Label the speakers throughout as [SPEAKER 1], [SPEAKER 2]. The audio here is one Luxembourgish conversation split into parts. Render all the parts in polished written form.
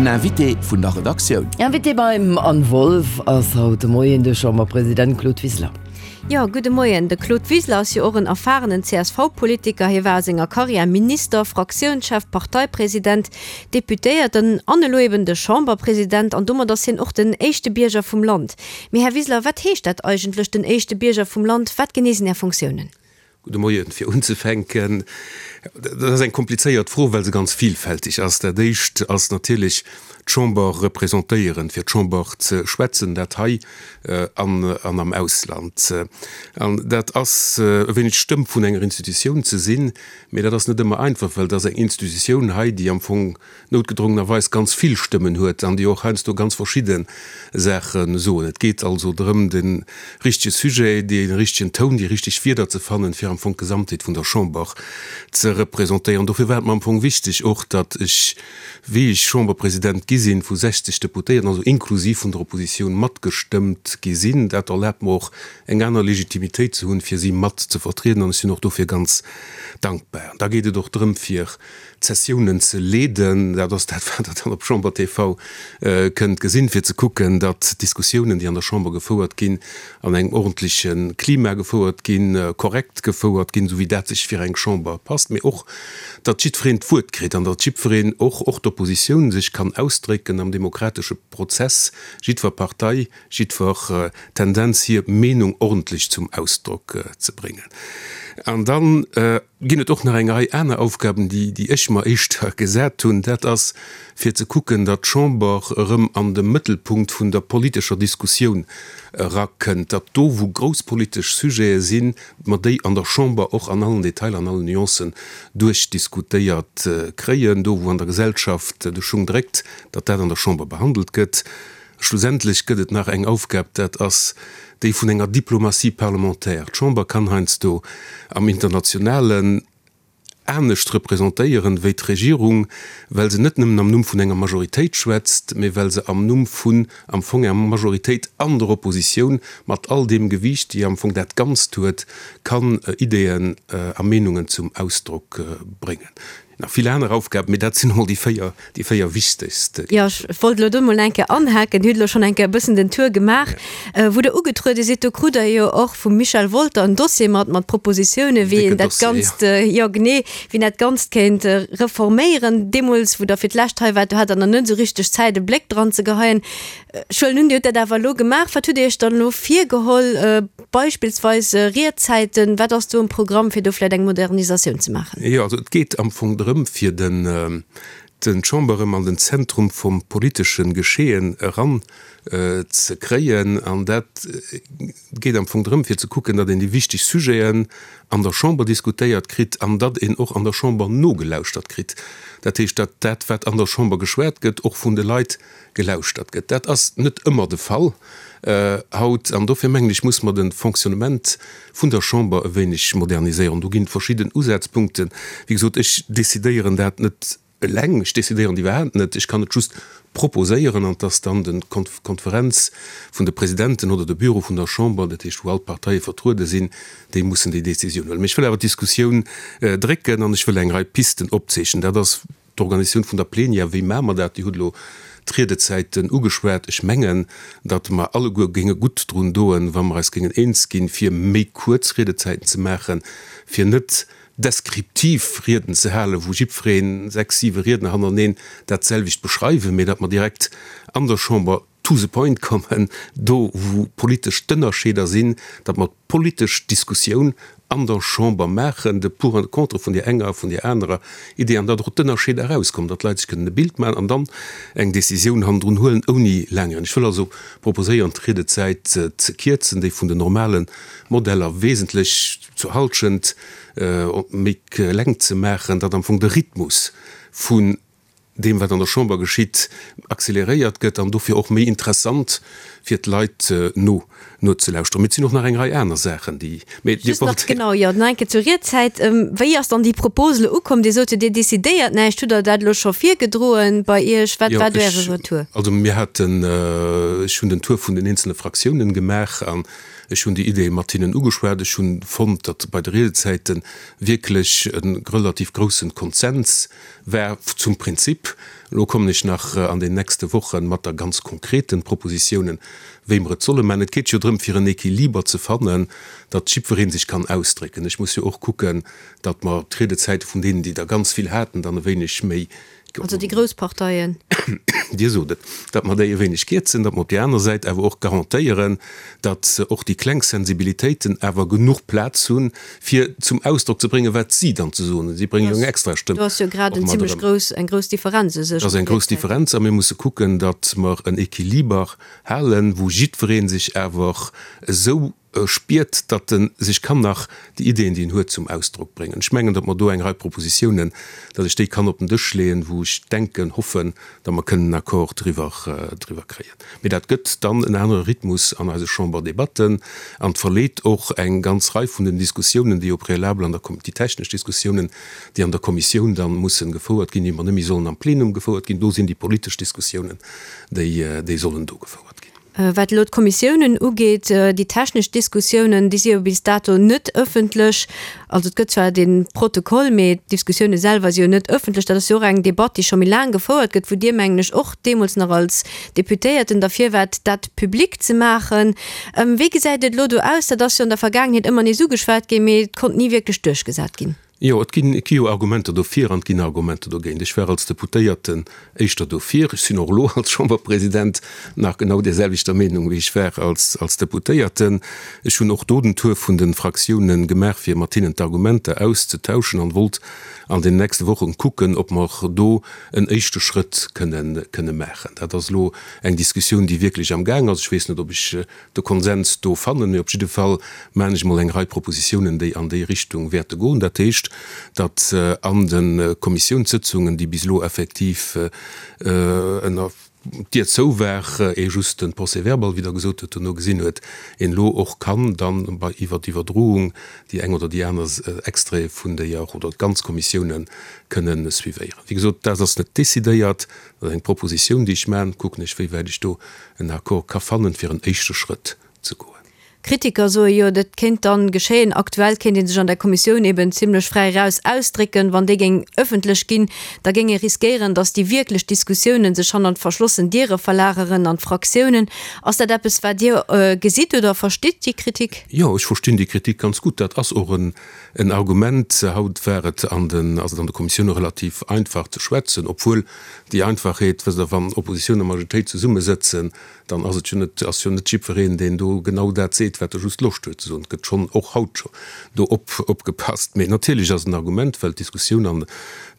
[SPEAKER 1] Den Invité vun der Redaktioun.
[SPEAKER 2] Invité beim Anne Wolff ass haut de Moien de Chamberpresident Claude Wiseler.
[SPEAKER 3] Jo, gudde Moien. De Claude Wiseler ass jo och en erfarenen CSV-Politiker. Hie war a senger Karriär Minister, Fraktiounschef, Parteipresident, Deputéierten an elo eben de Chamberpresident. An domat ass hien och den éischte Bierger vum Land. Mee Här Wiseler, wat heescht dat eigentlech, den éischte Bierger vum Land? Wat genee sinn Är Funktiounen?
[SPEAKER 4] Gudde Moien. Fir unzefänken, dat ass eng komplizéiert Fro, well se ganz vielfältig ass. Dat Éischt ass natierlech d'Chamber representéieren, fir d'Chamber ze schwätzen, dat hei an am Ausland. An dat ass e wéineg d'Stëmm vun enger Institutioun ze sinn, mee dat ass net ëmmer einfach, well et ass eng Institutioun hei, déi am Fong noutgedrongenerweis ganz vill Stëmmen huet an déi och heiansdo ganz verschidde Saache soen. Et geet also drëm, de richtege Sujet, dee richtegen Toun, déi richteg Wierder ze fannen, fir am Fong d'Gesamtheet vun der Chamber ze representéieren. Dofir war et mer am Fong wichteg och, datt ech, wéi ech Chamberpresident gi sinn, vu 60 Deputéierten, also inklusiv vun der Oppositioun, matgestëmmt gi sinn. Dat erlaabt mer och, eng aner Legitimitéit ze hunn, fir si mat ze vertrieden, an ech sinn och dofir ganz dankbar. Da geet et och drëm, fir d'Sessiounen ze leeden, dat ass dat, wat Der dann op Chamber TV kënnt gesinn, fir ze kucken, datt d'Diskussiounen, déi an der Chamber gefouert ginn, an engem ordentleche Klima gefouert ginn, korrekt gefouert ginn, esou wéi dat sech fir eng Chamber passt, mee och, datt jiddwereen d'Wuert kritt an datt jiddwereen, och och d'Oppositioun, sech kann ausdrécken am demokratesche Prozess, jiddwer Partei, jiddwer Tendenz hir Meenung ordentlech zum Ausdrock ze bréngen. An dann ginn et och nach eng Rei aner Aufgaben, déi, déi ech mer éischter gesat hunn. Dat ass, fir ze kucken, datt d'Chamber erëm an de Mëttelpunkt vun der politescher Diskussioun erakënnt, datt do, wou grouss politesch Sujete sinn, mer déi an der Chamber och an allen Detailer, an allen Nuancen duerchdiskutéiert kréien, do, wou an der Gesellschaft de Schung dréckt, datt dat an der Chamber behandelt gëtt. Schlussendlech gëtt et nach eng Aufgab, dat ass déi vun enger Diplomatie parlementaire. D'Chamber kann heiansdo am Internationalen anescht representéieren wéi d'Regierung, well se net nëmmen am Numm vun enger Majoritéit schwätzt, mee well se am Numm vun am Fong enger Majoritéit an der Oppositioun, mat all deem Gewiicht, déi am Fong dat Ganzt huet, kann Ideeën a Meenungen zum Ausdrock bréngen. Nach vill aner Aufgaben, mee dat sinn emol déi 4, déi 4 wichtegst.
[SPEAKER 3] Jo, ech wollt elo do emol eng Kéier anhaken. Dir hutt elo schonn eng Kéier e bëssen den Tour gemaach. Wou Der ugetruede sidd, do krut Der jo och vum Michel Wolter en Dossier mat, mat Propositiounen, wéi een dat Ganzt, jo genee, wéi een dat Ganzt kéint reforméieren. Deemools, wou Der fir d'lescht hei waart, do hat Der nach net esou richteg Zäit, e Bléck dran ze geheien. Ech huelen un, Dir hutt dat awer elo gemaach. Wat hutt Dir Iech dann elo virgeholl? Beispillsweis Riedzäiten, wat ass do um Programm, fir do vläicht eng Modernisatioun ze maachen?
[SPEAKER 4] Jo, also et geet am Fong drëm, fir den d'Chamber erëm an den Zentrum vum politesche Geschehen eran ze kréien. An dat geet am Fong drëm, fir ze kucken, datt een déi wichteg Sujeten an der Chamber diskutéiert kritt an datt een och an der Chamber nogelauschtert kritt. Dat heescht, datt dat, wat an der Chamber geschwat gëtt, och vun de Leit gelauschtert gëtt. Dat ass net ëmmer de Fall haut an dofir mengen ech, muss mer de Fonctionnement vun der Chamber e wéineg moderniséieren. Do ginn et verschidden Usazpunkten. Wéi gesot, ech decidéieren dat net eleng, ech decidéieren et iwwerhaapt net, ech kann et just proposéieren an et ass dann de Konferenz vun de Presidenten oder de Büro vun der Chamber, dat heescht wou all d'Parteie vertruede sinn, déi mussen déi Décisioun huelen. Mee ech wëll awer d'Diskussioun drécken an ech wëll eng Rei Pisten opzeechnen. Dat ass D'Organisatioun vun der Plenière, wéi maache mer dat? Dir hutt elo d'Riedezäiten ugeschwat. Ech mengen, datt mer alleguer géinge gutt drun doen, wa mer eis géingen eens ginn, fir méi kuerz Riedezäiten ze maachen, fir net deskriptiv Rieden ze halen, wou jiddwereen, sechs, siwe Riedner hannereneen, dat selwecht beschreiwen, mee datt mer direkt an der Chamber to the point kommen, do wou politesch d'Ënnerscheeder sinn, datt mer d'politesch Diskussioun an der Chamber maachen, de Pour an de Contre vun där enger a vun där anerer Idee, an datt och d'Ënnerscheeder erauskommen, datt d'Leit sech kënnen e Bild maachen an dann eng Décisioun hannendrun huelen, ouni laang Rieden. Ech wëll also proposéieren, d'Riedezäit ze kierzen, déi vun den normale Modeller wesentlech zur Halschent méi kleng ze maachen, datt am Fong de Rhythmus vun deem wat an der Chamber geschitt, accéléréiert gëtt an dofir och méi interessant fir d'Leit no. nozelauschteren. Mee et sinn och nach eng Rei aner Saachen, déi,
[SPEAKER 3] mee Dir wollt. Just nach, genau, jo, nach eng Kéier zur Riedzäit. Wéi ass dann déi Propos elo ukomm? Dir sot jo, Dir decidéiert näischt. Hutt Der dat elo scho virgedroen bei Iech? Wat war do Äre Retour?
[SPEAKER 4] Also mir haten, ech hunn den Tour vun den eenzele Fraktiounen gemaach an ech hunn déi Ideeë mat hinnen ugeschwat. Ech hunn fonnt, datt bei de Riedezäite wierklech e relativ groussen Konsens war zum Prinzip. Elo kommen ech nach an den nächste Woche mat der ganz konkreten Propositiounen, wéi mer et solle maachen. Et geet jo drëm, fir en Equiliber ze fannen, datt jiddweree sech kann ausdrécken. Ech muss jo och kucken, datt mer d'Riedezäite vun deenen, déi der ganz vill haten, dann e wéineg méi.
[SPEAKER 3] Also déi grouss Parteien.
[SPEAKER 4] Dir sot et, datt mer déi e wéineg kierzen, datt mer op där aner Säit awer och garantéieren, datt och déi kleng Sensibilitéiten awer genuch Plaz hunn, fir zum Ausdrock ze bréngen, wat si dann ze soen hunn. Si bréngen jo eng extra Stëmm
[SPEAKER 3] och mat erëm. Do ass jo grad eng zimlech grouss, eng grouss Differenz u
[SPEAKER 4] sech. Dat ass eng grouss Differenz a mir musse kucken, datt mer en Equiliber halen, wou jiddweree sech awer esou spiert, datt e sech kann nach déi Ideeën, déi en huet, zum Ausdrock bréngen. Ech mengen, datt mer do eng Rei Propositiounen, datt ech déi kann op den Dësch leeën, wou ech denken, hoffen, datt mer kënnen en Accord driwwer, driwwer kréien. Mee dat gëtt dann en anere Rhythmus an eise Chamberdebatten an verleet och eng ganz Rei vun den Diskussiounen, déi au préalable an der, déi technesch Diskussiounen, déi an der Kommissioun da mussen gefouert ginn, déi mer net méi sollen am Plenum gefouert ginn. Do sinn déi politesch Diskussiounen, déi, déi sollen do gefouert ginn.
[SPEAKER 3] Wat elo d'Kommissiounen ugeet, déi technesch Diskussiounen, déi si jo bis dato net ëffentlech. Also et gëtt zwar dee Protokoll, mee d'Diskussioune selwer si jo net ëffentlech. Dat ass jo och eng Debatt, déi scho méi laang gefouert gëtt, wou Dir, mengen ech, och deemools nach als Deputéierten derfir waart, dat public ze maachen. Wéi gesäit et elo do aus? Dat ass jo an der Vergaangenheet ëmmer nees ugeschwat ginn, mee et konnt ni wierklech duerchgesat ginn.
[SPEAKER 4] Jo, et ginn, et gi jo Argumenter dofir an et ginn Argumenter dogéint. Ech war als Deputéierten éischter dofir. Ech sinn och elo als Chamberpresident nach genau där selwechter Meenung, wéi ech war als, als Deputéierten. Ech hunn och do den Tour vun de Fraktiounen gemaach, fir mat hinnen d'Argumenter auszetauschen an wollt an den nächste Wochen kucken, ob mer do en éischte Schrëtt kënnen, kënne maachen. Dat ass elo eng Diskussioun, déi wierklech am Gaang ass. Ech weess net, ob ech de Konsens do fannen. Mee op jidde Fall maachen ech emol eng Rei Propositiounen, déi an déi Richtung wäerte goen. Dat heescht, datt an de Kommissiounssëtzungen, déi bis elo effektiv ënner d'Dier zou war, ee just de Procès-verbal, wéi Der gesot hutt, dono gesinn huet, een elo och kann dann bei iwwer d'Iwwerdroung déi eng oder déi aner Extraite vun déier oder d'ganz Kommissiounen kënnen suivéieren. Wéi gesot, dat ass net decidéiert, dat ass eng Propositioun, déi ech maachen. Kucken ech, wéi wäit ech do en Accord ka fannen, fir en éischte Schrëtt ze goen.
[SPEAKER 3] Kritiker soe jo, dat kéint dann geschéien. Aktuell kéint ee sech an der Kommissioun eben zimlech fräi eraus ausdrécken. Wann déi géing ëffentlech ginn, da géing ee riskéieren, datt déi wierklech Diskussiounen sech hannert verschlossen Diere verlageren an d'Fraktiounen. Ass dat eppes, wat Dir gesitt oder verstitt, déi Kritik?
[SPEAKER 4] Jo, ech verstinn déi Kritik ganz gutt. Dat ass och en Argument. Haut war et an den, ass et an de Kommissioune relativ einfach ze schwätzen, obwuel Déi Einfachheet, wësst Der, wann Oppositioun a Majoritéit zesummesëtzen, dann ass et jo net, ass jo net jiddwereen, deen do genau dat seet, wat e just Loscht huet ze soen. Et gëtt schonn och haut scho do op, opgepasst. Mee natierlech ass et en Argument, well d'Diskussioun an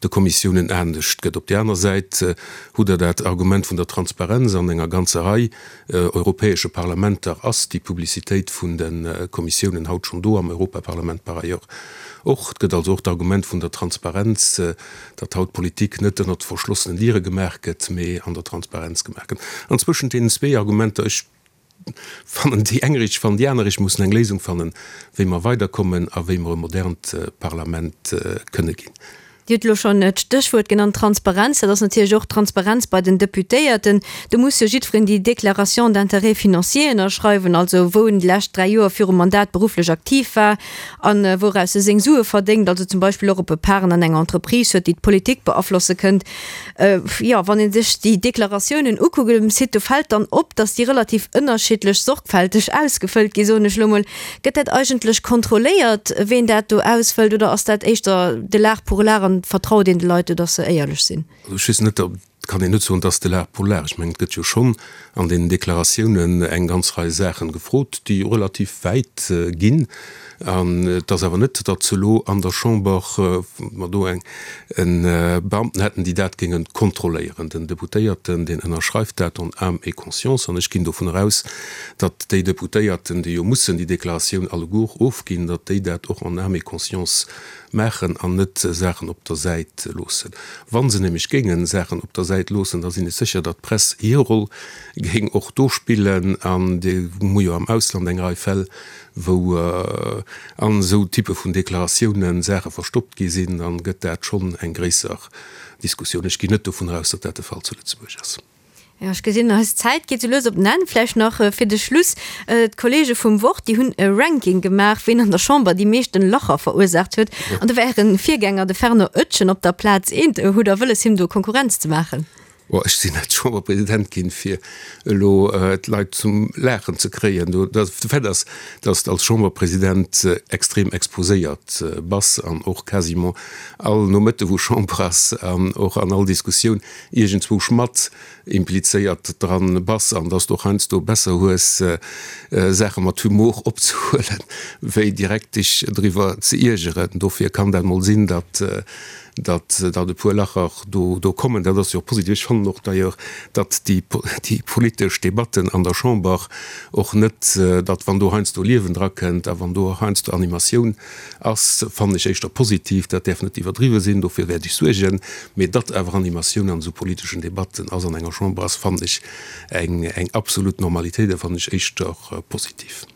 [SPEAKER 4] de Kommissiounen anescht gëtt. Op där aner Säit hutt Der dat Argument vun der Transparenz. An enger ganzer Rei europäesche Parlamenter ass déi Publicitéit vun de Kommissiounen haut schonn do, am Europaparlament par ailleurs och. Et gëtt also och d'Argument vun der Transparenz, datt haut Politik net ënnert verschlossenen Diere gemaach gëtt, mee an der Transparenz gemaach gëtt. An zwëschent deenen zwee Argumenter, ech fannen déi eng richteg, ech fannen déi aner richteg, mussen eng Léisung fannen, wéi mer weiderkommen a wéi mer e modernt Parlament kënne ginn.
[SPEAKER 3] Dir hutt elo schonn d'Stéchwuert genannt, Transparenz. Dat ass natierlech och d'Transparenz bei den Deputéierten. Do muss jo jiddwereen déi Déclaration d'intérêts financiers ënnerschreiwen, also wou en déi lescht 3 Joer virum Mandat berufflech aktiv war, An wouraus e seng Sue verdéngt, also zum Beispill och op e Parten an enger Entreprise huet, déi d'Politik beaflosse kënnt. Jo, wann ee sech déi Deklaratiounen ukuckt um Site, do fält dann op, datt déi relativ ënnerschiddlech sorgfälteg ausgefëllt ginn, soen ech elo mol. Gëtt dat eigentlech kontrolléiert, ween dat do ausfëllt, oder ass dat éischter de l'art pour l'art an vertraut een de Leit do, datt se éierlech sinn?
[SPEAKER 4] Also ech weess net, ob Et kann een net soen, et ass de l'art pour l'art. Ech mengen, et gëtt jo schonn an deenen Deklaratiounen eng ganz Rei Saachen gefrot, déi relativ wäit ginn. An et ass awer net, datt elo an der Chamber mer do eng Beamten hätten, déi dat géinge kontrolléieren. Den Deputéierten, deen ënnerschreift dat en âme et conscience. An ech ginn dovun eraus, datt déi Deputéierten, déi jo mussen déi Deklaratioun alleguer ofginn, datt déi dat och en âme et conscience maachen an net Saachen op der Säit loossen. Wa se nämlech géinge Saachen op der Säit. Säit loossen, da sinn ech sécher, datt d'Press hir Roll géing och do spillen. An mir hu jo am Ausland eng Rei Fäll, wou an esou Typpe vun Deklaratiounen Saache verstoppt gi sinn, dann gëtt dat schonn eng gréisser Diskussioun. Ech ginn net dovun aus, datt dat de Fall zu Lëtzebuerg ass.
[SPEAKER 3] Jo, ech gesinn, eis Zäit geet sou lues op den Enn. Vläicht nach fir de Schluss, D'Kollege vum Wort, déi hunn e Ranking gemaach, ween an der Chamber déi meeschten Lacher verursaacht huet. An do war Äre Virgänger, de Fernand Oetjen, op der Plaz eent. Hutt Der wëlles, him do Konkurrenz ze maachen?
[SPEAKER 4] Bon, ech sinn net Chamberpresident ginn, fir elo d'Leit zum Laachen ze kréien. De Fait ass, datt s de als Chamberpresident extrem exposéiert bass an och quasiment all Nomëtte wou Chamber ass an och an all Diskussioun iergendzwousch mat implizéiert dran bass an dass de och heiansdo besser hues Saache mat Humor opzehuelen, wéi direkt dech driwwer ze iergeren. Dofir kann dat mol sinn, datt datt datt e puer Lacher do do kommen. Dat ass jo och positiv. Ech fannen och d'ailleurs, datt déi déi politesch Debatten an der Chamber och net, datt wann do heiansdo Liewen drakënnt a wann do och heiansdo Animatioun Ass, fannen ech éischter positiv. Dat däerf net iwwerdriwwe sinn, dofir wäert ech suergen. Mee datt awer Animatioun an esou politeschen Debatten ass an enger Chamber ass, fannen ech eng eng absolut Normalitéit a fannen ech éischter positiv.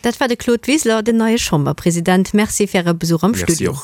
[SPEAKER 3] Dat war de Claude Wiseler, den neie Chamberpresident. Merci fir Äre Besuch am Studio.
[SPEAKER 4] Merci och.